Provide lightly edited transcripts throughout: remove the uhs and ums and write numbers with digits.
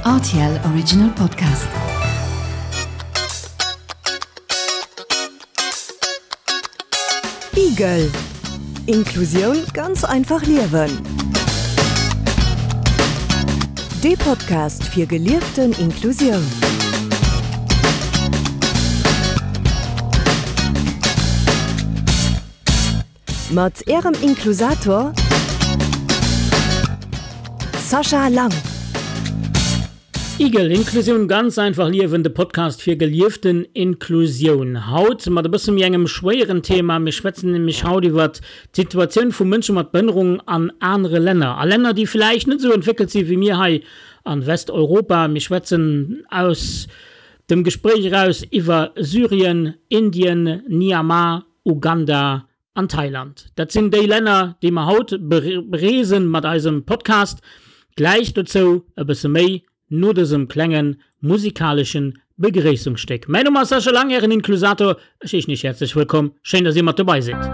Rtl Original Podcast. Igel, Inklusioun ganz einfach liewen. Dee Podcast fir gelieften Inklusioun. Mat Ärem Inklusator Sascha Lang. Igel, Inklusioun ganz einfach liewen, de Podcast fir gelieften Inklusioun. Haut mat e bësse méi engem schwéieren Thema. Mir schwätzen nämlech haut iwwert d'Situatioun vu Mënsche mat Behënnerung an anere Länner, a Länner, déi vläicht net esou entwéckelt si wéi mir hei a Westeuropa. Mir schwätzen aus dem Gespréich eraus iwwer Syrien, Indien, Myanmar, Uganda an Thailand. Dat sinn déi Länner, déi mer haut bereesen mat eisem Podcast. Gläich dozou e bësse méi no dësem klenge musikalesche Begréissungsstéck. Mäin Numm ass Sascha Lang, Ären Inklusator. Ech heeschen Iech häerzlech wëllkomm. Schéin, dass Dir mat dobei sidd.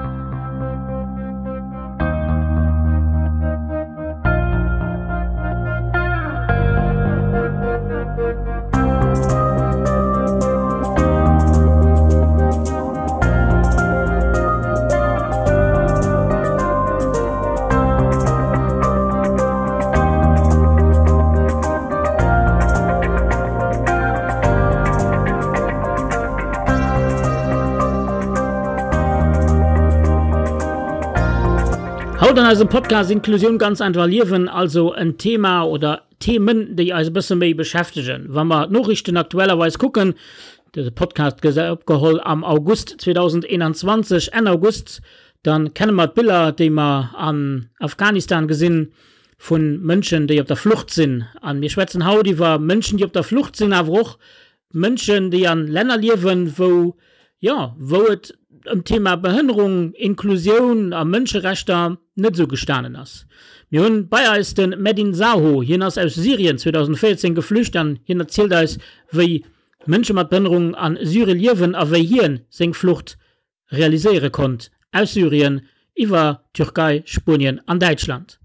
Haut an eisem Podcast Inklusioun ganz einfach liewen, also en Thema oder Themen, déi eis e bësse méi beschäftegen. Wa mer d'Noriichten aktuellerweis kucken, Dëse Podcast gëtt opgeholl am August 2021, Enn August. Dann kenne mer d'Biller, déi mer an Afghanistan gesinn, vu Mënschen, déi op der Flucht sinn. A mir schwätzen haut iwwer Mënschen, déi op der Flucht sinn, awer och Mënschen, déi an Länner liewen, wou, jo, wou et ëm d'Thema Behënnerung, Inklusioun a Mënscherechter net esou gestanen ass. Mir hunn bei eis de Medin Zaho. Hien ass aus Syrien 2014 geflücht an hien erzielt eis, wéi Mënsche mat Behënnerung a Syrie liewen a wéi hien seng Flucht realiséiere konnt aus Syrien iwwer Türkei, Spuenien an Däitschland.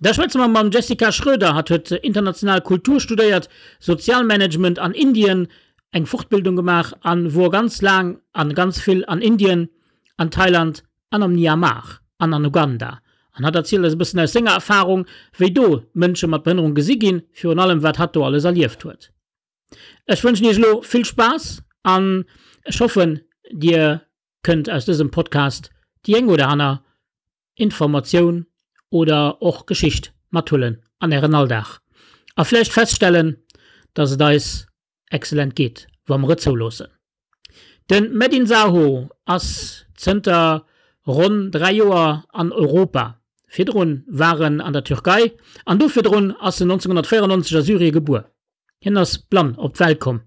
Da schwätze mer mam Jessica Schroeder. Hatt huet international Kultur studéiert, Sozialmanagement an Indien, eng Fortbildung gemaach a wor ganz laang a ganz vill an Indien, an Thailand an am Myanmar an an Uganda. An hatt erzielt eis e bëssen aus senger Erfarung, wéi do Mënsche mat Behënnerung gesi ginn, virun allem wat hatt do alles erlieft huet. Ech wënschen iech elo vill Spaass an ech hoffen dir kënnt aus dësem Podcast déi eng oder aner Informatioun oder och Geschicht mathuelen an ären Alldag a vläicht feststellen, dass et eis excellent geet, wa mer et zouloossen. De Medin Zaho ass zënter ronn 3 Joer an Europa. Virdrun war en an der Türkei an do virdrun ass en 1994 a Syrie gebuer. Hien ass blann op d'Welt komm.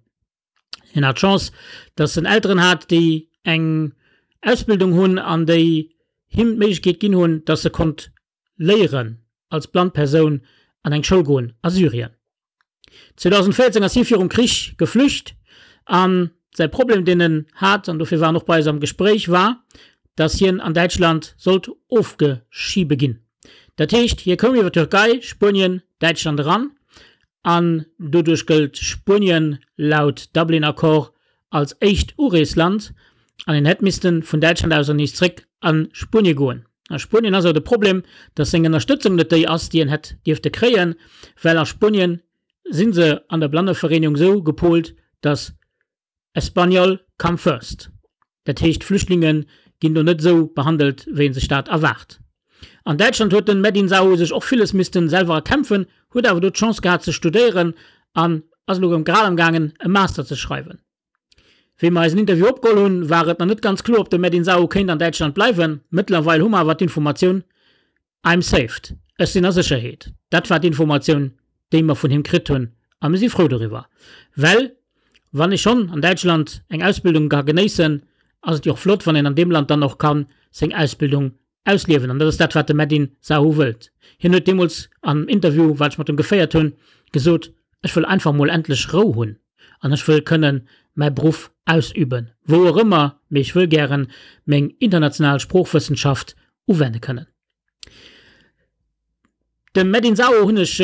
Hien hat d'Chance, datt en Elteren hat, déi eng Ausbildung hunn an déi him d'Méiglechkeet ginn hunn, datt e konnt léieren als blann Persoun an eng Schoul goen a Syrien. 2014 ass hie virum Krich geflücht a säi Problem, deen en hat, an dofir war en och bei eis am Gespréich, war, datt hien an Däitschland sollt ofgeschibe ginn. Dat heescht, hie koum iwwer Türkei, Spuenien, Däitschland eran an doduerch gëllt Spuenien laut Dublin-Accord als éischt Ureesland an en hätt misste vun Däitschland aus ernees zréck a Spuenie goen. A Spuenien ass awer de Problem, datt seng Ënnerstëtzung net déi ass, déi en hätt dierfte kréien, well a Spuenien si se an der Blannevereenegung esou gepolt, datt Español come first. Dat heescht, Flüchtlinge ginn do net esou behandelt, wéi ee sech dat erwaart. An Däitschland huet den Medin Zaho sech och villes missten selwer erkämpfen, huet awer do d'Chance gehat ze studéieren an ass elo grad am gaangen e Master ze schreiwen. Wéi mer eisen Interview opgeholl hunn, war et nach net ganz kloer, ob de Medin Zaho kéint an Däitschland bleiwen. Mëttlerweil hu mer awer d'Informatioun, I'm saved, ech sinn a Sécherheet. Dat war d'Informatioun, déi mer vun him kritt hunn a mir si frou doriwwer. Well wann ee schonn an Däitschland eng Ausbildung ka genéissen, ass et jo och flott, wann een an deem Land dann och ka seng Ausbildung ausliewen. An dat ass dat, wat de Medin Zahu wëllt. Hien huet deemools am Interview, wat ech mat em geféiert hunn, gesot, Ech wëll einfach mol endlech Rou hunn an ech wëll kënnen mäi Beruff ausüben, wou och ëmmer, mee ech wëll gären meng international Sproochwëssenschaft uwende kënnen. Dem Medin Zaho hunn ech.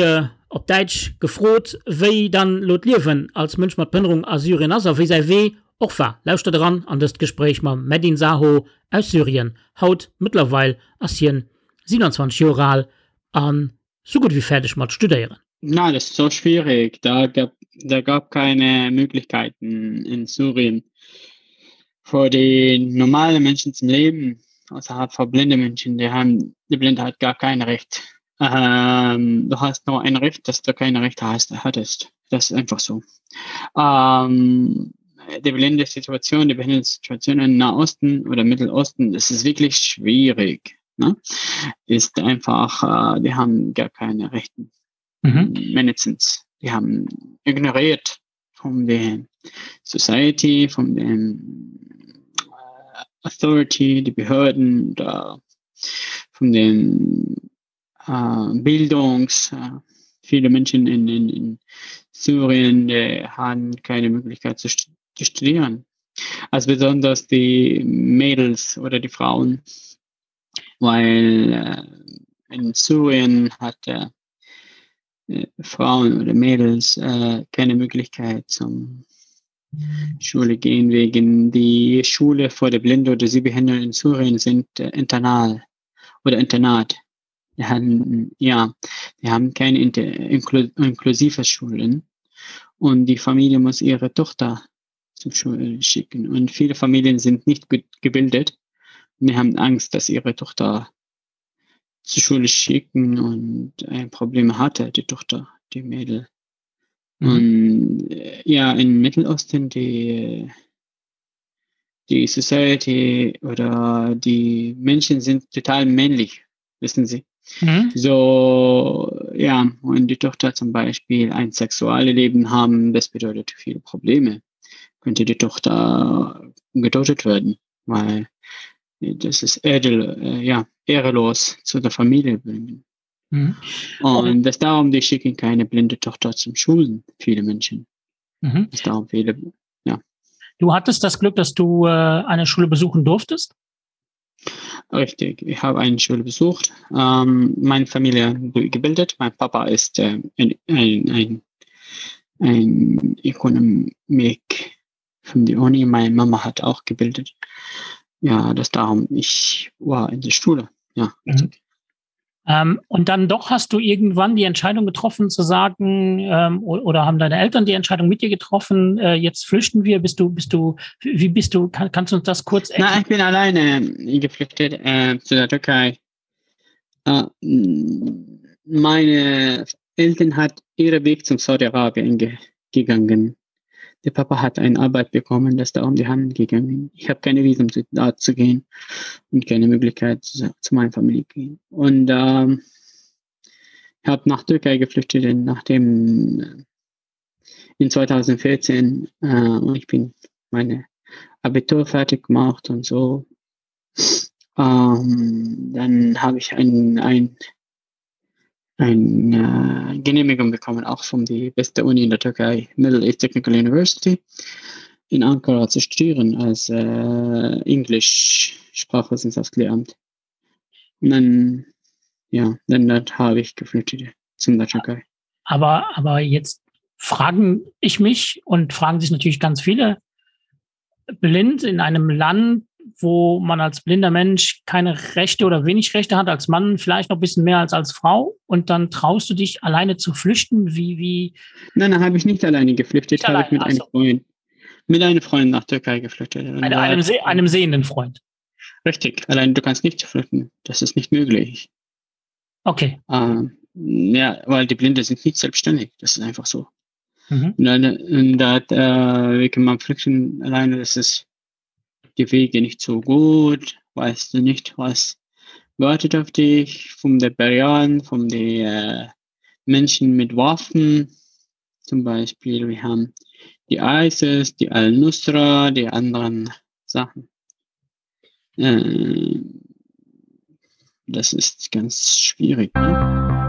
op Däitsch gefrot, wéi dann lo d'Liewen als Mënsch mat Behënnerung a Syrien ass a wéi säi Wee och war. Lauschtert eran an dëst Gespréich mam Medin Saho aus Syrien. Haut mëttlerweil ass hien 27 Joer al an sou gutt ewéi fäerdeg mat studéieren. Nein, das ist so schwierig. Da gab, da gab keine Möglichkeiten in Syrien für die normalen Menschen zum Leben, außerhalb von blinden Menschen, die haben, die Blindheit gar kein Recht. Ähm, du hast nur ein Recht, dass du keine Rechte hast, hattest. Das ist einfach so. Ähm, die blinde Situation, die blinde Situation im Nahosten oder Mittelosten, das ist wirklich schwierig. Ne? Ist einfach, äh, die haben gar keine Rechten. Mhm. Mindestens. Die haben ignoriert von der Society, von den äh, Authority, die Behörden, da, von den äh, Bildungs. Äh, viele Menschen in, in, in Syrien die haben keine Möglichkeit zu, zu studieren. Also besonders die Mädels oder die Frauen, weil äh, in Syrien hat äh, Frauen oder Mädels äh, keine Möglichkeit zum Schule gehen wegen die Schule vor der Blinde oder Sehbehinderten in Syrien sind äh, internal oder Internat. Die haben, ja, die haben keine inklu inklusive Schulen und die Familie muss ihre Tochter zur Schule schicken. Und viele Familien sind nicht gebildet und die haben Angst, dass ihre Tochter zur Schule schicken und ein Problem hatte, die Tochter, die Mädel. Mhm. Und äh, ja, in Mittelosten, die, die Society oder die Menschen sind total männlich, wissen Sie. Mhm. So, ja, und die Tochter zum Beispiel ein sexuelles Leben haben, das bedeutet viele Probleme. Könnte die Tochter getötet werden, weil das ist edel, äh, ja, ehrelos zu der Familie bringen. Mhm. Und das darum, die schicken keine blinde Tochter zum Schulen, viele Menschen. Mhm. Das darum viele, ja. Du hattest das Glück, dass du äh, eine Schule besuchen durftest? Richtig, ich habe eine Schule besucht, ähm, meine Familie gebildet. Mein Papa ist äh, ein, ein, ein, ein Ökonomik von der Uni. Meine Mama hat auch gebildet. Ja, das darum, ich war in der Schule. Ja, mhm. Ähm, und dann doch hast du irgendwann die Entscheidung getroffen zu sagen, ähm, oder haben deine Eltern die Entscheidung mit dir getroffen, äh, jetzt flüchten wir, bist du, bist du, wie bist du, kann, kannst du uns das kurz erklären? Nein, ich bin alleine geflüchtet äh, zu der Türkei. Äh, meine Eltern hat ihren Weg zum Saudi-Arabien ge gegangen. Der Papa hat eine Arbeit bekommen, das da um die Hand gegangen. Ich habe keine Visum zu, da zu gehen und keine Möglichkeit zu, zu meiner Familie gehen. Und ähm, ich habe nach Türkei geflüchtet, nachdem äh, in 2014 äh, und ich bin meine Abitur fertig gemacht und so. Ähm, dann habe ich ein, ein eine äh, Genehmigung bekommen, auch von der beste Uni in der Türkei, Middle East Technical University, in Ankara zu studieren als äh, Englisch Sprachwissenschaftslehramt. Und dann, ja, dann, dann habe ich geflüchtet zum der Türkei. Aber, aber jetzt fragen ich mich und fragen sich natürlich ganz viele, blind in einem Land, wo man als blinder Mensch keine Rechte oder wenig Rechte hat, als Mann vielleicht noch ein bisschen mehr als als Frau und dann traust du dich alleine zu flüchten, wie wie Nein, dann habe ich nicht alleine geflüchtet, habe ich mit einem Freund mit einem Freund nach Türkei geflüchtet. Eine, einem, Se einem sehenden Freund. Richtig, allein du kannst nicht flüchten, das ist nicht möglich. Okay. Ähm, ja, weil die Blinde sind nicht selbstständig, das ist einfach so. Mhm. Und, dann, und da, äh, wie kann man flüchten alleine, das ist die Wege nicht so gut, weißt du nicht, was wartet auf dich von der Barrieren, von den äh, Menschen mit Waffen. Zum Beispiel, wir haben die ISIS, die Al-Nusra, die anderen Sachen. Äh, das ist ganz schwierig. Ne?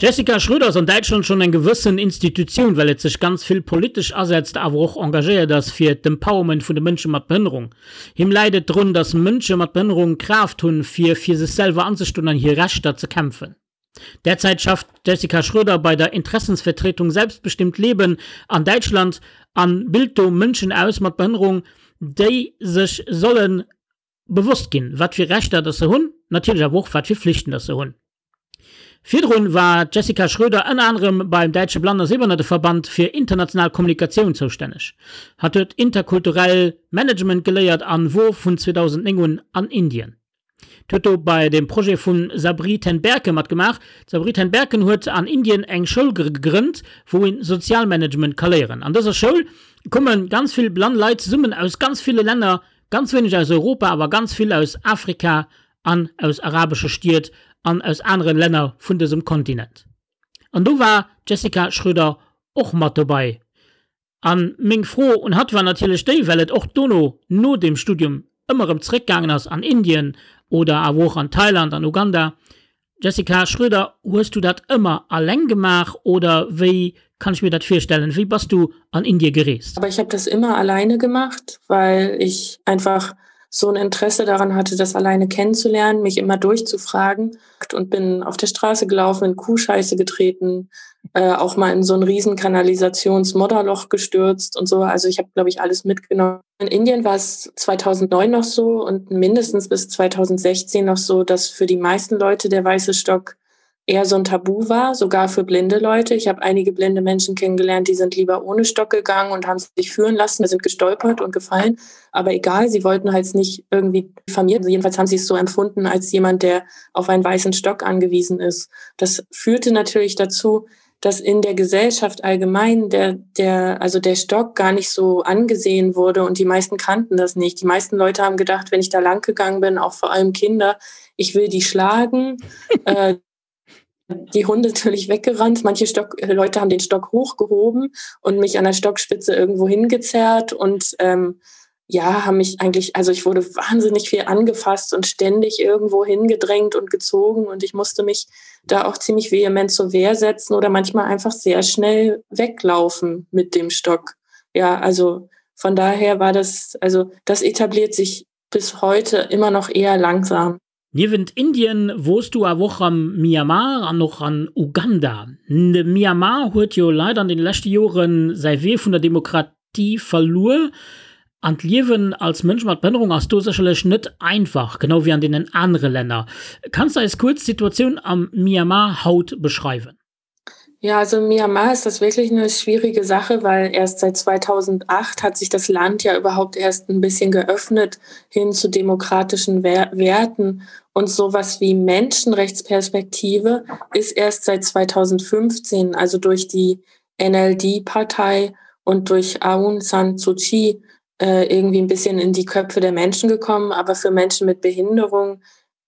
D'Jessica Schröder ass an Däitschland schonn eng gewëssen Institutioun, well et sech ganz vill politesch asetzt, awer och engagéiert ass fir d'Empowerment vun de Mënsche mat Behënnerung. Him läit et drun, datt Mënsche mat Behënnerung d'Kraaft hunn, fir fir sech selwer anzestoen an hir Rechter ze kämpfen. Derzäit schafft d'Jessica Schröder bei der Interessensvertretung Selbstbestimmt Leben an Däitschland an bilt do Mënschen aus mat Behënnerung, déi sech solle bewosst ginn, wat fir Rechter datt se hunn, natierlech awer och wat fir Flichten datt se hunn. Virdrun war d'Jessica Schröder ënner anerem beim Däitsche Blann a Sehbehannerteverband fir international Kommunikatioun zoustänneg. Hatt huet interkulturell Management geléiert an wor vun 2009 un an Indien. Huet do bei dem Projet vum Sabri ten Berke matgemaach. D'Sabri ten Berken huet an Indien eng Schoul gegrënnt, wou een Sozialmanagement ka léieren. An dëser Schoul komme ganz vill blann Leit zesummen aus ganz ville Länner, ganz wéineg aus Europa, awer ganz vill aus Afrika an aus arabesche Stied an aus anere Länner vun dësem Kontinent. An do war d'Jessica Schröder och mat dobei. A meng Fro un hatt war natierlech déi, well et och dono, no dem Studium, ëmmer erëm zeréckgaangen ass an Indien oder awer och an Thailand, an Uganda, Jessica Schröder, hues du dat ëmmer alleng gemaach oder wéi kann ich mir dat virstellen? Wéi bass du an Indie gereest? Aber ich habe das immer alleine gemacht, weil ich einfach so ein Interesse daran hatte, das alleine kennenzulernen, mich immer durchzufragen und bin auf der Straße gelaufen, in Kuhscheiße getreten, äh, auch mal in so ein riesen Kanalisationsmodderloch gestürzt und so. Also ich habe, glaube ich, alles mitgenommen. In Indien war es 2009 noch so und mindestens bis 2016 noch so, dass für die meisten Leute der weiße Stock eher so ein Tabu war, sogar für blinde Leute. Ich habe einige blinde Menschen kennengelernt, die sind lieber ohne Stock gegangen und haben sich führen lassen, sind gestolpert und gefallen. Aber egal, sie wollten halt nicht irgendwie diffamiert. Jedenfalls haben sie es so empfunden als jemand, der auf einen weißen Stock angewiesen ist. Das führte natürlich dazu, dass in der Gesellschaft allgemein der, der, also der Stock gar nicht so angesehen wurde und die meisten kannten das nicht. Die meisten Leute haben gedacht, wenn ich da lang gegangen bin, auch vor allem Kinder, ich will die schlagen. äh, die Hunde natürlich weggerannt. Manche Stock, Leute haben den Stock hochgehoben und mich an der Stockspitze irgendwo hingezerrt und ähm, ja, haben mich eigentlich, also ich wurde wahnsinnig viel angefasst und ständig irgendwo hingedrängt und gezogen und ich musste mich da auch ziemlich vehement zur Wehr setzen oder manchmal einfach sehr schnell weglaufen mit dem Stock. Ja, also von daher war das, also das etabliert sich bis heute immer noch eher langsam. Niewent Indien wors du awer och am Myanmar an och an Uganda. De Myanmar huet jo leider an den leschte Joren säi Wee vun der Demokratie verluer an d'Liewen als Mënsch mat Behënnerung ass do sécherlech net einfach, genau wéi an deenen anere Länner. Kanns de eis kuerz d'Situatioun am Myanmar haut beschreiwen? Ja, also in Myanmar ist das wirklich eine schwierige Sache, weil erst seit 2008 hat sich das Land ja überhaupt erst ein bisschen geöffnet hin zu demokratischen Werten und sowas wie Menschenrechtsperspektive ist erst seit 2015, also durch die NLD-Partei und durch Aung San Suu Kyi äh, irgendwie ein bisschen in die Köpfe der Menschen gekommen. Aber für Menschen mit Behinderung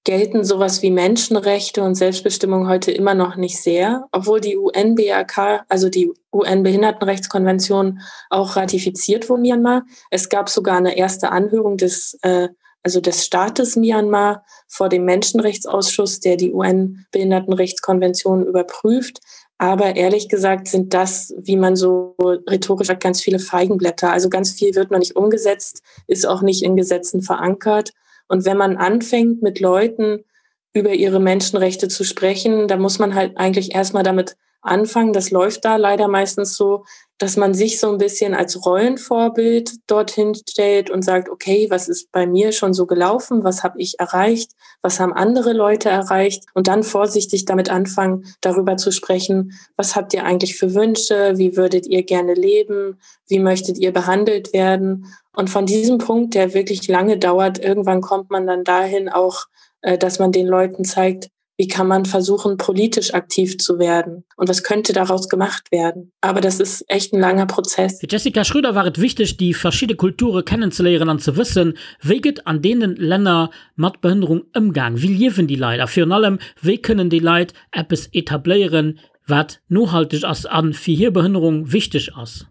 gelten sowas wie Menschenrechte und Selbstbestimmung heute immer noch nicht sehr, obwohl die UNBRK, also die UN-Behindertenrechtskonvention auch ratifiziert wurde Myanmar. Es gab sogar eine erste Anhörung des, äh, also des Staates Myanmar vor dem Menschenrechtsausschuss, der die UN-Behindertenrechtskonvention überprüft. Aber ehrlich gesagt sind das, wie man so rhetorisch sagt, ganz viele Feigenblätter. Also ganz viel wird noch nicht umgesetzt, ist auch nicht in Gesetzen verankert. Und wenn man anfängt, mit Leuten über ihre Menschenrechte zu sprechen, da muss man halt eigentlich erstmal damit anfangen. Das läuft da leider meistens so, dass man sich so ein bisschen als Rollenvorbild dorthin stellt und sagt, okay, was ist bei mir schon so gelaufen? Was habe ich erreicht? Was haben andere Leute erreicht? Und dann vorsichtig damit anfangen, darüber zu sprechen, was habt ihr eigentlich für Wünsche? Wie würdet ihr gerne leben? Wie möchtet ihr behandelt werden? Und von diesem Punkt, der wirklich lange dauert, irgendwann kommt man dann dahin auch, äh, dass man den Leuten zeigt, wie kann man versuchen, politisch aktiv zu werden und was könnte daraus gemacht werden. Aber das ist echt ein langer Prozess. Fir d'Jessica Schröder war et wichteg, déi verschidde Kulture kennenzeléieren an ze wëssen, wéi gëtt an deene Länner mat Behënnerung ëmgaang, wéi liewen déi Leit a virun allem, wéi kënnen déi Leit eppes etabléieren, wat nohalteg ass a fir hir Behënnerung wichteg ass.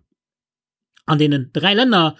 An deenen 3 Länner,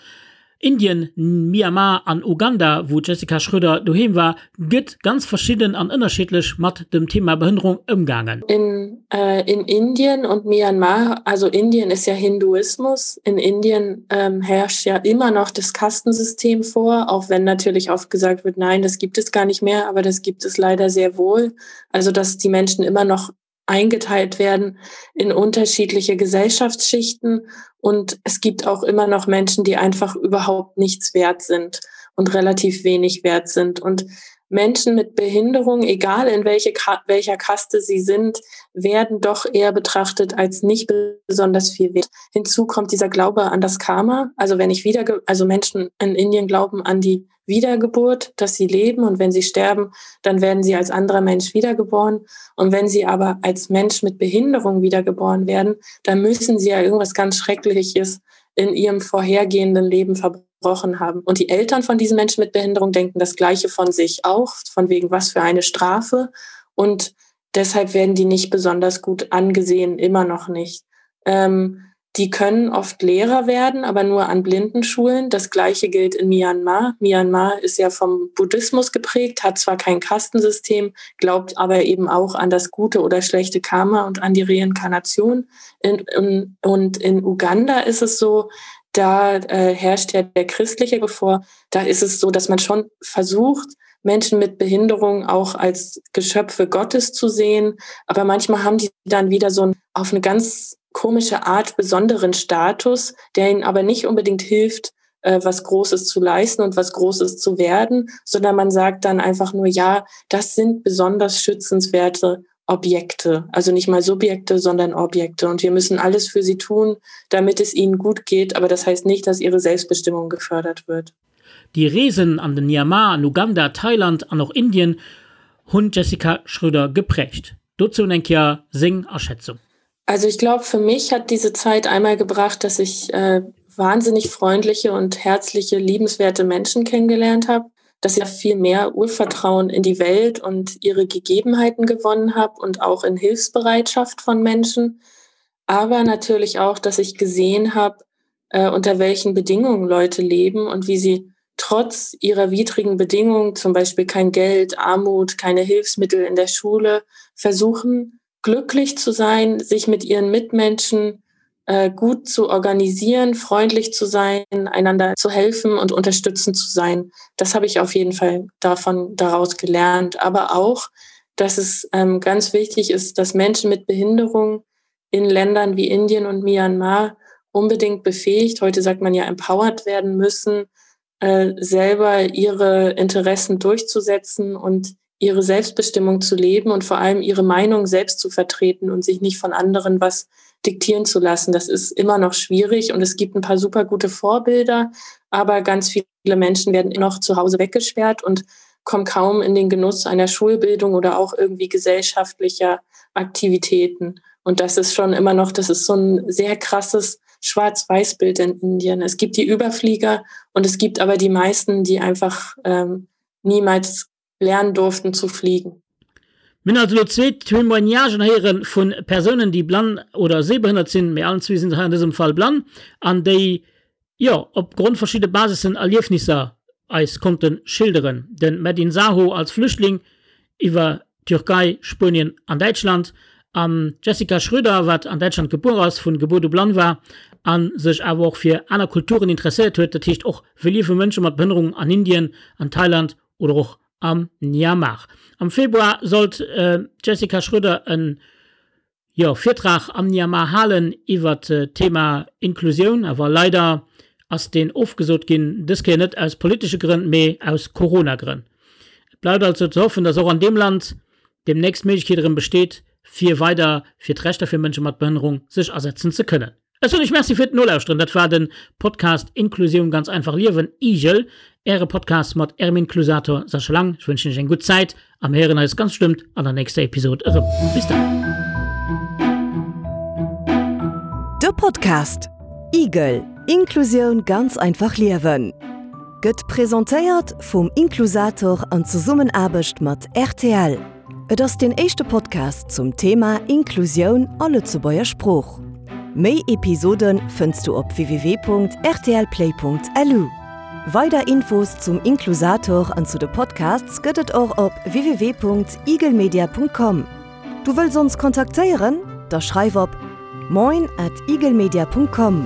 Indien, Myanmar an Uganda, wou d'Jessica Schröder doheem war, gëtt ganz verschidden an ënnerschiddlech mat dem Thema Behënnerung ëmgaangen. In Äh, in Indien und Myanmar, also Indien ist ja Hinduismus. In Indien ähm, herrscht ja immer noch das Kastensystem vor, auch wenn natürlich oft gesagt wird, nein, das gibt es gar nicht mehr, aber das gibt es leider sehr wohl. Also dass die Menschen immer noch eingeteilt werden in unterschiedliche Gesellschaftsschichten und es gibt auch immer noch Menschen, die einfach überhaupt nichts wert sind und relativ wenig wert sind. Und Menschen mit Behinderung, egal in welche, welcher Kaste sie sind, werden doch eher betrachtet als nicht besonders viel wert. Hinzu kommt dieser Glaube an das Karma. Also wenn ich wieder, also Menschen in Indien glauben an die Wiedergeburt, dass sie leben und wenn sie sterben, dann werden sie als anderer Mensch wiedergeboren. Und wenn sie aber als Mensch mit Behinderung wiedergeboren werden, dann müssen sie ja irgendwas ganz Schreckliches in ihrem vorhergehenden Leben verbrochen haben. Und die Eltern von diesen Menschen mit Behinderung denken das Gleiche von sich auch, von wegen was für eine Strafe. Und deshalb werden die nicht besonders gut angesehen, immer noch nicht. Ähm, die können oft Lehrer werden, aber nur an Blindenschulen. Das gleiche gilt in Myanmar. Myanmar ist ja vom Buddhismus geprägt, hat zwar kein Kastensystem, glaubt aber eben auch an das gute oder schlechte Karma und an die Reinkarnation. In, in, und in Uganda ist es so, da äh, herrscht ja der christliche bevor. Da ist es so, dass man schon versucht, Menschen mit Behinderung auch als Geschöpfe Gottes zu sehen. Aber manchmal haben die dann wieder so ein, auf eine ganz komische Art besonderen Status, der ihnen aber nicht unbedingt hilft, äh, was Großes zu leisten und was Großes zu werden, sondern man sagt dann einfach nur, ja, das sind besonders schützenswerte Objekte, also nicht mal Subjekte, sondern Objekte. Und wir müssen alles für sie tun, damit es ihnen gut geht. Aber das heißt nicht, dass ihre Selbstbestimmung gefördert wird. Déi Reesen an den Myanmar, an Uganda, Thailand an och Indien hunn d'Jessica Schröder geprägt. Dozou eng Kéier seng Aschätzung. Also ich glaube, für mich hat diese Zeit einmal gebracht, dass ich äh, wahnsinnig freundliche und herzliche, liebenswerte Menschen kennengelernt habe, dass ich viel mehr Urvertrauen in die Welt und ihre Gegebenheiten gewonnen habe und auch in Hilfsbereitschaft von Menschen. Aber natürlich auch, dass ich gesehen habe, äh, unter welchen Bedingungen Leute leben und wie sie trotz ihrer widrigen Bedingungen, zum Beispiel kein Geld, Armut, keine Hilfsmittel in der Schule, versuchen, glücklich zu sein, sich mit ihren Mitmenschen äh, gut zu organisieren, freundlich zu sein, einander zu helfen und unterstützend zu sein. Das habe ich auf jeden Fall davon daraus gelernt. Aber auch, dass es ähm, ganz wichtig ist, dass Menschen mit Behinderung in Ländern wie Indien und Myanmar unbedingt befähigt, heute sagt man ja empowered werden müssen, äh, selber ihre Interessen durchzusetzen und ihre Selbstbestimmung zu leben und vor allem ihre Meinung selbst zu vertreten und sich nicht von anderen was diktieren zu lassen. Das ist immer noch schwierig und es gibt ein paar super gute Vorbilder, aber ganz viele Menschen werden noch zu Hause weggesperrt und kommen kaum in den Genuss einer Schulbildung oder auch irgendwie gesellschaftlicher Aktivitäten. Und das ist schon immer noch, das ist so ein sehr krasses Schwarz-Weiß-Bild in Indien. Es gibt die Überflieger und es gibt aber die meisten, die einfach ähm, niemals lernen durften zu fliegen. Mir hunn also elo zwee Témoignagen héiere vu Persounen, déi blann oder sehbehënnert sinn, mee allen zwee sinn se hei an dësem Fall blann, an déi, jo, op Grond verschidde Basissen Erliefnisser eis konnte schilderen. De Medin Saho als Flüchtling iwwer Türkei, Spuenien an Däitschland an d'Jessica Schröder, wat an Däitschland gebuer ass, vun Gebuert u blann war a sech awer och fir aner Kulturen interesséiert huet, dat heescht och wéi liewe Mënsche mat Behënnerung an Indien, an Thailand oder och am Myanmar. Am Februar sollt d'Jessica Schröder en, jo, Virtrag am Myanmar halen iwwert d'Thema Inklusioun, awer leider ass deen ofgesot ginn, dës Kéier net aus politesche Grënn, mee aus Corona-Grënn. Et bleift also ze hoffen, dass och an deem Land deemnächst d'Méiglechkeet erëm besteet, fir weider fir d'Rechter fir Mënsche mat Behënnerung sech asetzen ze kënnen. Ech soen iech Merci fir d'Nolauschteren. Dat war de Podcast Inklusioun ganz einfach liewen, IGEL, äre Podcast mat ärem Inklusator Sascha Lang. Ech wënschen iech eng gutt Zäit a mir héieren eis ganz bestëmmt an der nächster Episod erëm. Bis dann. De Podcast IGEL, Inklusioun ganz einfach liewen gëtt presentéiert vum Inklusator an Zesummenaarbecht mat rtl. Et ass deen éischte Podcast zum Thema Inklusioun a Lëtzebuerger Sprooch. Méi Episode fënns du op www.rtlplay.lu. Weider Infos zum Inklusator an zu de Podcasts gëtt et och op www.igelmedia.com. Du wëlls ons kontaktéieren? Da schreif op moin at eaglemedia.com.